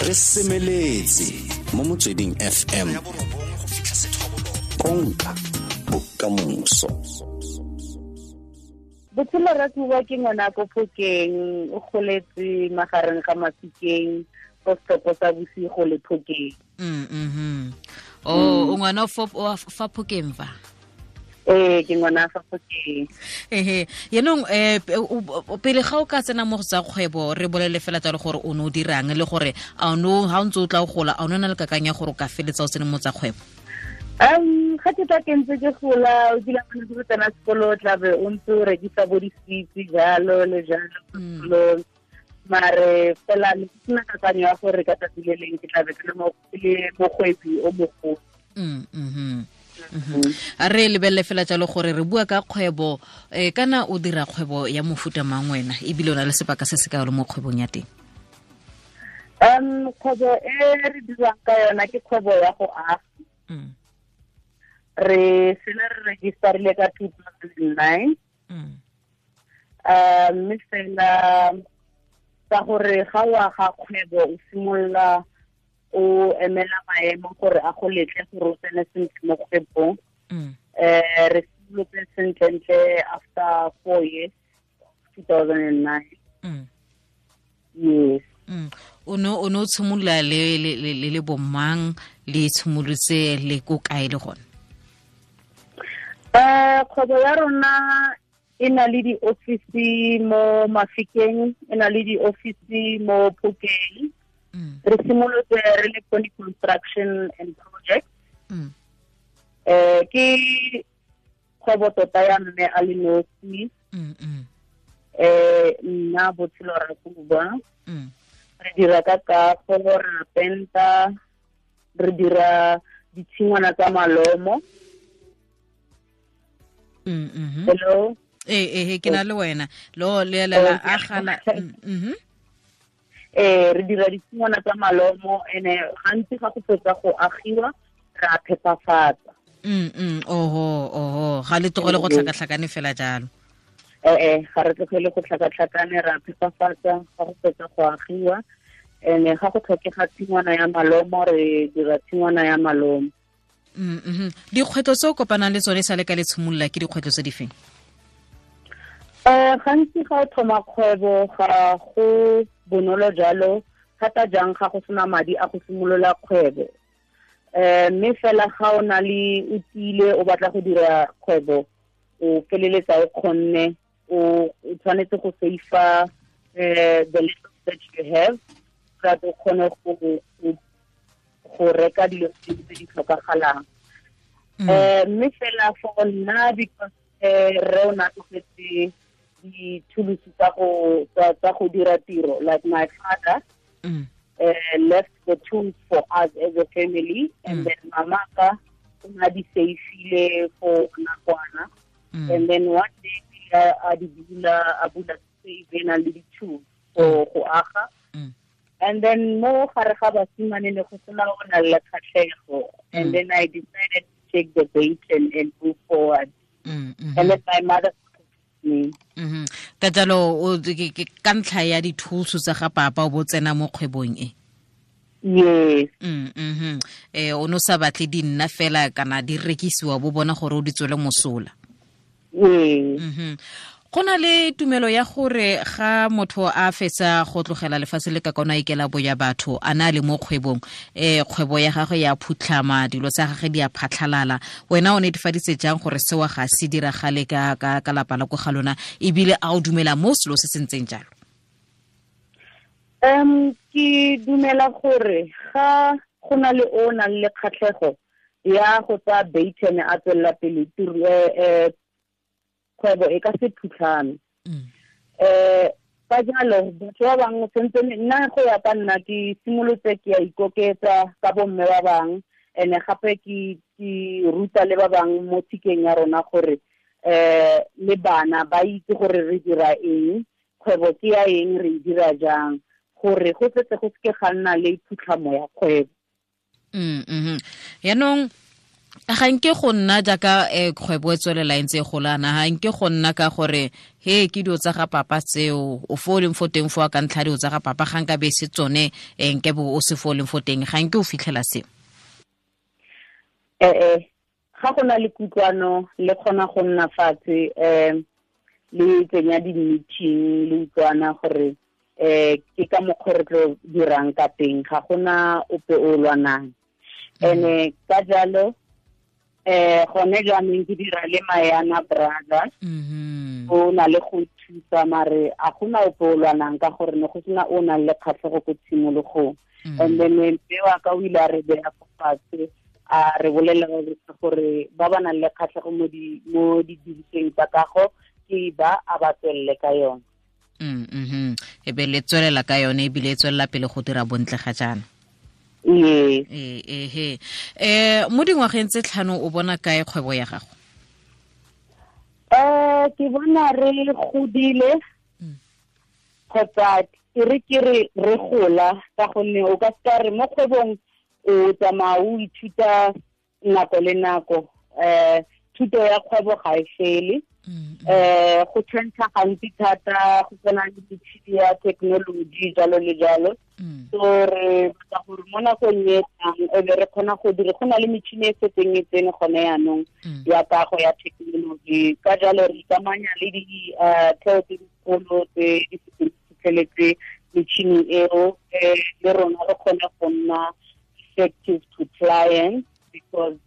Re semeletse mo Motsweding FM, konka bokamoso. Botshelo Rakuba ke ngwana ko Phokeng, o goletse magareng ga Mafikeng, ko setopo sa bosigo le Phokeng. O ngwana fa Phokeng fa? Ee, ke ngwana fa Phokeng. Ehe, yaanong pele ga o ka tsena mo go tsa kgwebo, re bolele fela jalo gore o ne o dirang, le gore a no ha o ntse o tla o gola, a o ne na le kakanyo ya gore o ka feletsa o tsene mo tsa kgwebo? Ga ke tla ke ntse ke gola, o kile wa ntse tsena sekolo, o tla be o ntse o rekisa bo di-sweets jalo le jalo sekolong. Mare fela ne ke sena kakanyo ya gore ka tsatsi le leng ke tla be ke le mokgwebi o mogolo. A re lebelele fela jalo gore re bua ka kgwebo, kana o dira kgwebo ya mofuta mang wena, ebile o na le sebaka se se ka le mo kgwebong ya teng? Kgwebo e re dirang ka yona ke kgwebo ya go aga. Re sena re registerile ka 2009. Mme fela ka gore ga o aga kgwebo o simolola o emela maemo gore a go letle gore o tsene sentle mo kgwebong. Re simolotse sentlentle after 4 years, 2009. Yes. O ne o tshimolola le bomang, le tshimolotse le ko kae le gone? Kgwebo ya rona e na le di-office mo Mafikeng, e na le di-office mo Phokeng. Re simolotse re le Pony Construction and Project. Ke kgwebo tota ya mme a le nosi. Nna Botshelo Rakuba. Re dira ka kago, re penta, re dira ditshingwana tsa malomo. Hello. Ke na le wena. Lo le la agala. Re dira ditshingwana tsa malomo, ene gantsi ga go fetsa go agiwa re a phepafatsa. Oho, ga le tlogele go tlhakatlhakane fela jalo. Ga re tlogele go tlhakatlhakane, re a phepafatsa ga go fetsa go agiwa. Ene ga go tlhokega tshingwana ya malomo, re dira tshingwana ya malomo. Dikgwetlho tse o kopanang le tsone sa le ka le tshimolola ke dikgwetlho tse di feng? Gantsi ga o thoma kgwebo ga go bonolo jalo, thata jang ga go sena madi a go simolola kgwebo. Mme fela ga o na le o tiile o batla go dira kgwebo, o feleletsa o kgonne, o tshwanetse go save-a the little that you have, so that o kgone go reka dilo tse di tlhokagalang. Mme fela for nna, because re o na tlogetse di-tools tsa go dira tiro, like my father left the tools for us as a family, and then mama ka o na di save-ile for nakwana. And then one day a di bula, a bula save na le di-tools for go aga. And then mo gare ga basimane ne go sena o na le kgatlhego. And then I decided to take the bait and move forward. And then my mother me. Ka jalo ka ntlha ya di-tools tsa ga papa o bo tsena mo kgwebong e? Yes. O no sa batle di nna fela kana di rekisiwa, bo bona gore o di tswele mosola. Yes. Go na le tumelo ya gore ga motho a fetsa go tlogela lefatshe le ka kona ikela boya batho, a na le mo kgwebong, kgwebo ya gagwe ya phutlhama, dilo tsa gagwe di a phatlhalala. Wena o netefaditse jang gore seo ga se diragale ka lapa la ko ga lona, ebile a o dumela mo selo se se ntseng jalo? Ke dumela gore ga go na le o nang le kgatlhego ya go tsaya baton a tswelela pele kgwebo e ka se phutlhame. Ka jalo batho ba bangwe sentse nna go ya ka nna ke simolotse ke ya ikoketsa ka bomme ba bangwe, ene gape ke ruta le ba bangwe mo tshikeng ya rona gore le bana ba itse gore re dira eng, kgwebo ke ya eng, re e dira jang, gore go setse go seke ga nna le phutlhamo ya kgwebo. Yaanong Ga nke go nna jaaka kgwebo e tswelela e ntse e golana, ga nke go nna ka gore he ke dilo tsa ga papa tseo, o fo o leng fo teng fo ka ntlha dilo tsa ga papa, ga nka be se tsone nke bo o se fo o leng fo teng, ga nke o fitlhela seo? Ga go na le kutlwano, le kgona go nna fatshe, le tsenya di-meeting, le utlwana gore ke ka mokgwa re tlo dirang ka teng, ga gona ope o lwanang. Ene ka jalo gone jaanong ke dira le Mayana Brothers, o na le go thusa, mare a gona ope o lwanang ka gore ne go sena o nang le kgatlhego ko tshimologong. And then mme wa ka o ile a re beya fo fatshe, a re bolelela gore ba ba nang le kgatlhego mo didirisweng tsa kago ke ba a ba tswelele ka yone. E be le tswelela ka yone, ebile e tswelela pele go dira bontle ga jaana. Ee. Mo dingwageng tse 5 o bona kae kgwebo ya gago? Ke bona re godile, kgotsa ke re ke re re gola, ka gonne o ka seka re mo kgwebong o tsamaya o ithuta nako le nako. Thuto ya kgwebo ga e fele. Go change gantsi thata, go tsena le metšhini ya technology jalo le jalo. So re batla gore mo nakong e tlang e be re kgona go dira, go na le metšhini e setseng e tsene gone yaanong ya kago ya technology. Ka jalo re ikamanya le ditheo tse dikgolo tse di setseng di fitlheletse metšhini eo, le rona re kgone go nna effective to clients, because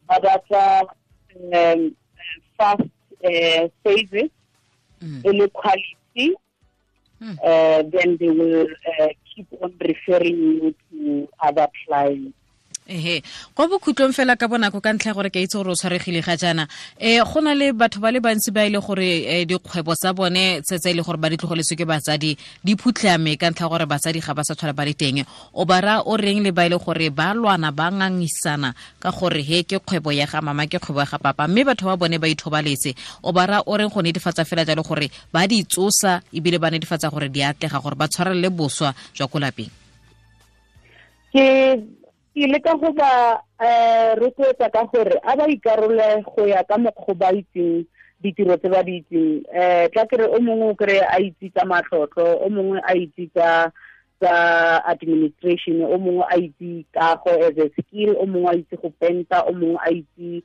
ba batla fast service, e le quality, then they will keep on referring you to other clients. Ehe, kwa bokhutlong fela ka bonako, ka ntlha gore ke itse gore o tshwaregile ga jaana, go na le batho ba le bantsi ba ile gore dikgwebo tsa bone tse ile gore ba di tlogeletswe ke batsadi di phutlhame ka ntlha gore batsadi ga ba sa tlhola ba le teng. O ba ra o reng le ba ile gore ba lwana ba ngangisana ka gore he ke kgwebo ya ga mama, ke kgwebo ya ga papa, mme batho ba bone ba ithobaletse? O ba ra o reng go netefatsa fela jalo gore ba di tsosa ebile ba netefatsa gore di atlega, gore ba tshwarelele boswa jwa ko lapeng? Ke leka go ba rotloetsa ka gore a ba ikarole go ya ka mokgwa ba itseng ditiro tse ba di itseng. Tla kere o mongwe o kry a itse tsa matlotlo, o mongwe a itse tsa administration, o mongwe a itse kago as a skill, o mongwe a itse go penta, o mongwe a itse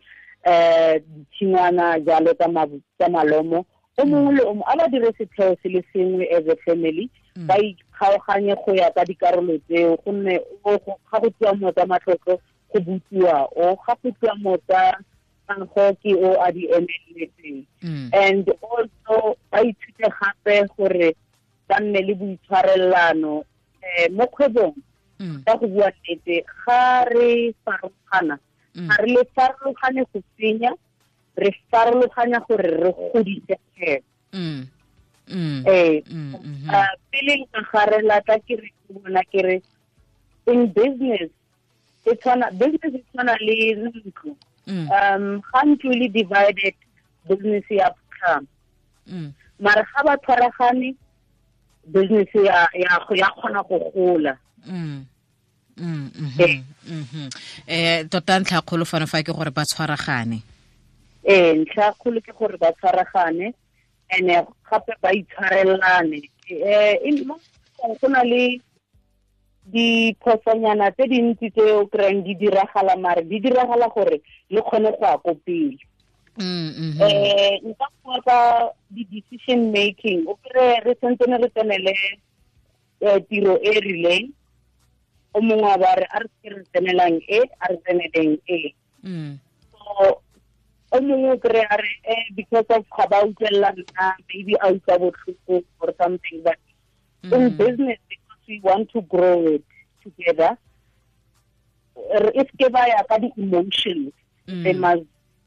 ditshingwana jalo tsa malomo. O mongwe le o mongwe a ba dire setheo se le sengwe as a family, ba ikgaoganye go ya ka dikarolo tseo, gonne ga go tsewa mo tsa matlotlo go butsiwa o, ga go tsewa mo tsa kago ke o a di emeletseng. And also ba ithute gape gore ba nne le boitshwarelano mo kgwebong. Ka go bua nnete, ga re farologana, ga re le farologane go senya, re farologanya gore re godise kgwebo. Pele nka garela ka ke re bona ke re in business e tshwana, business e tshwana le ntlo. Ga ntlo le divided, business ya phutlhama. Mara ga ba tshwaragane, business ya kgona go gola. Tota ntlha kgolo fano fa ke gore ba tshwaragane. Ntlha kgolo ke gore ba tshwaragane, ene gape ba itshwarelane. Go na le diphosonyana tse dintsi tse o kry-ang di diragala, mare di diragala gore le kgone go ya ko pele. Nka bua ka di-decision making, o kry re santsane re tsenele tiro e rileng, o mongwe a ba re a re se re tsenelang e, a re tseneleng e. So o mongwe o kry a re because of ga ba utlwelela nna, maybe a utlwa botlhoko or something. But in business, because we want to grow it together, if ke ba ya ka di-emotions, they must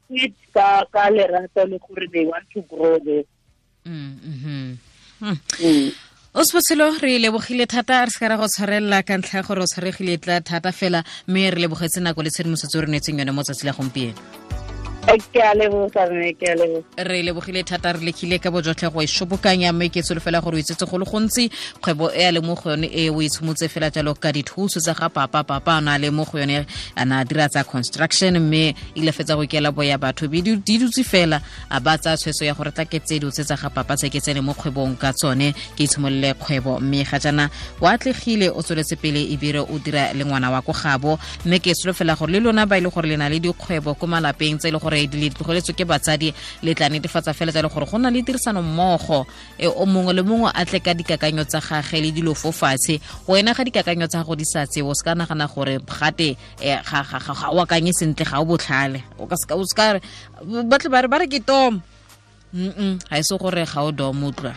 it ka lerato le gore they want to grow this. O Sebotshelo, re lebogile thata, re se ka ra go tshwarelela ka ntlha ya gore o tshwaregile tla thata fela, mme re lebogetse nako le tshedimosetso re neetseng yone mo tsatsi la gompieno. Ke a leboga mme, ke a leboga. Re lebogile thata, re lekile ka bojotlhe go e shobokanya, mme ke solofela gore o itsetse go le gontsi. Kgwebo e a le mo go yone e o itshomotse fela jalo ka dithuso tsa ga papa. Papa a na le mo go yone, a na dira tsa construction, mme ile fetsa go ikela boya batho be di dutse fela, a ba tsaya tshwetso ya gore tla ke tse dilo tse tsa ga papa tse ke tsene mo kgwebong ka tsone, ke itshimolole kgwebo. Mme ga jaana o atlegile, o tsweletse pele ebile o dira le ngwana wa ko gabo. Mme ke solofela gore le lona ba e le gore le na le dikgwebo ko malapeng tse e le gore di tlogeletswe ke batsadi, le tla netefatsa fela tsa le gore go na le tirisano mmogo, o mongwe le mongwe a tle ka dikakanyo tsa gage le dilo fo fatshe. Wena ga dikakanyo tsa gago di sa tsewe, o se ka nagana gore gate ga o akanye sentle, ga o botlhale. O ka se ka re batle ba re ke tom, ga e se gore ga o dom, utlwa.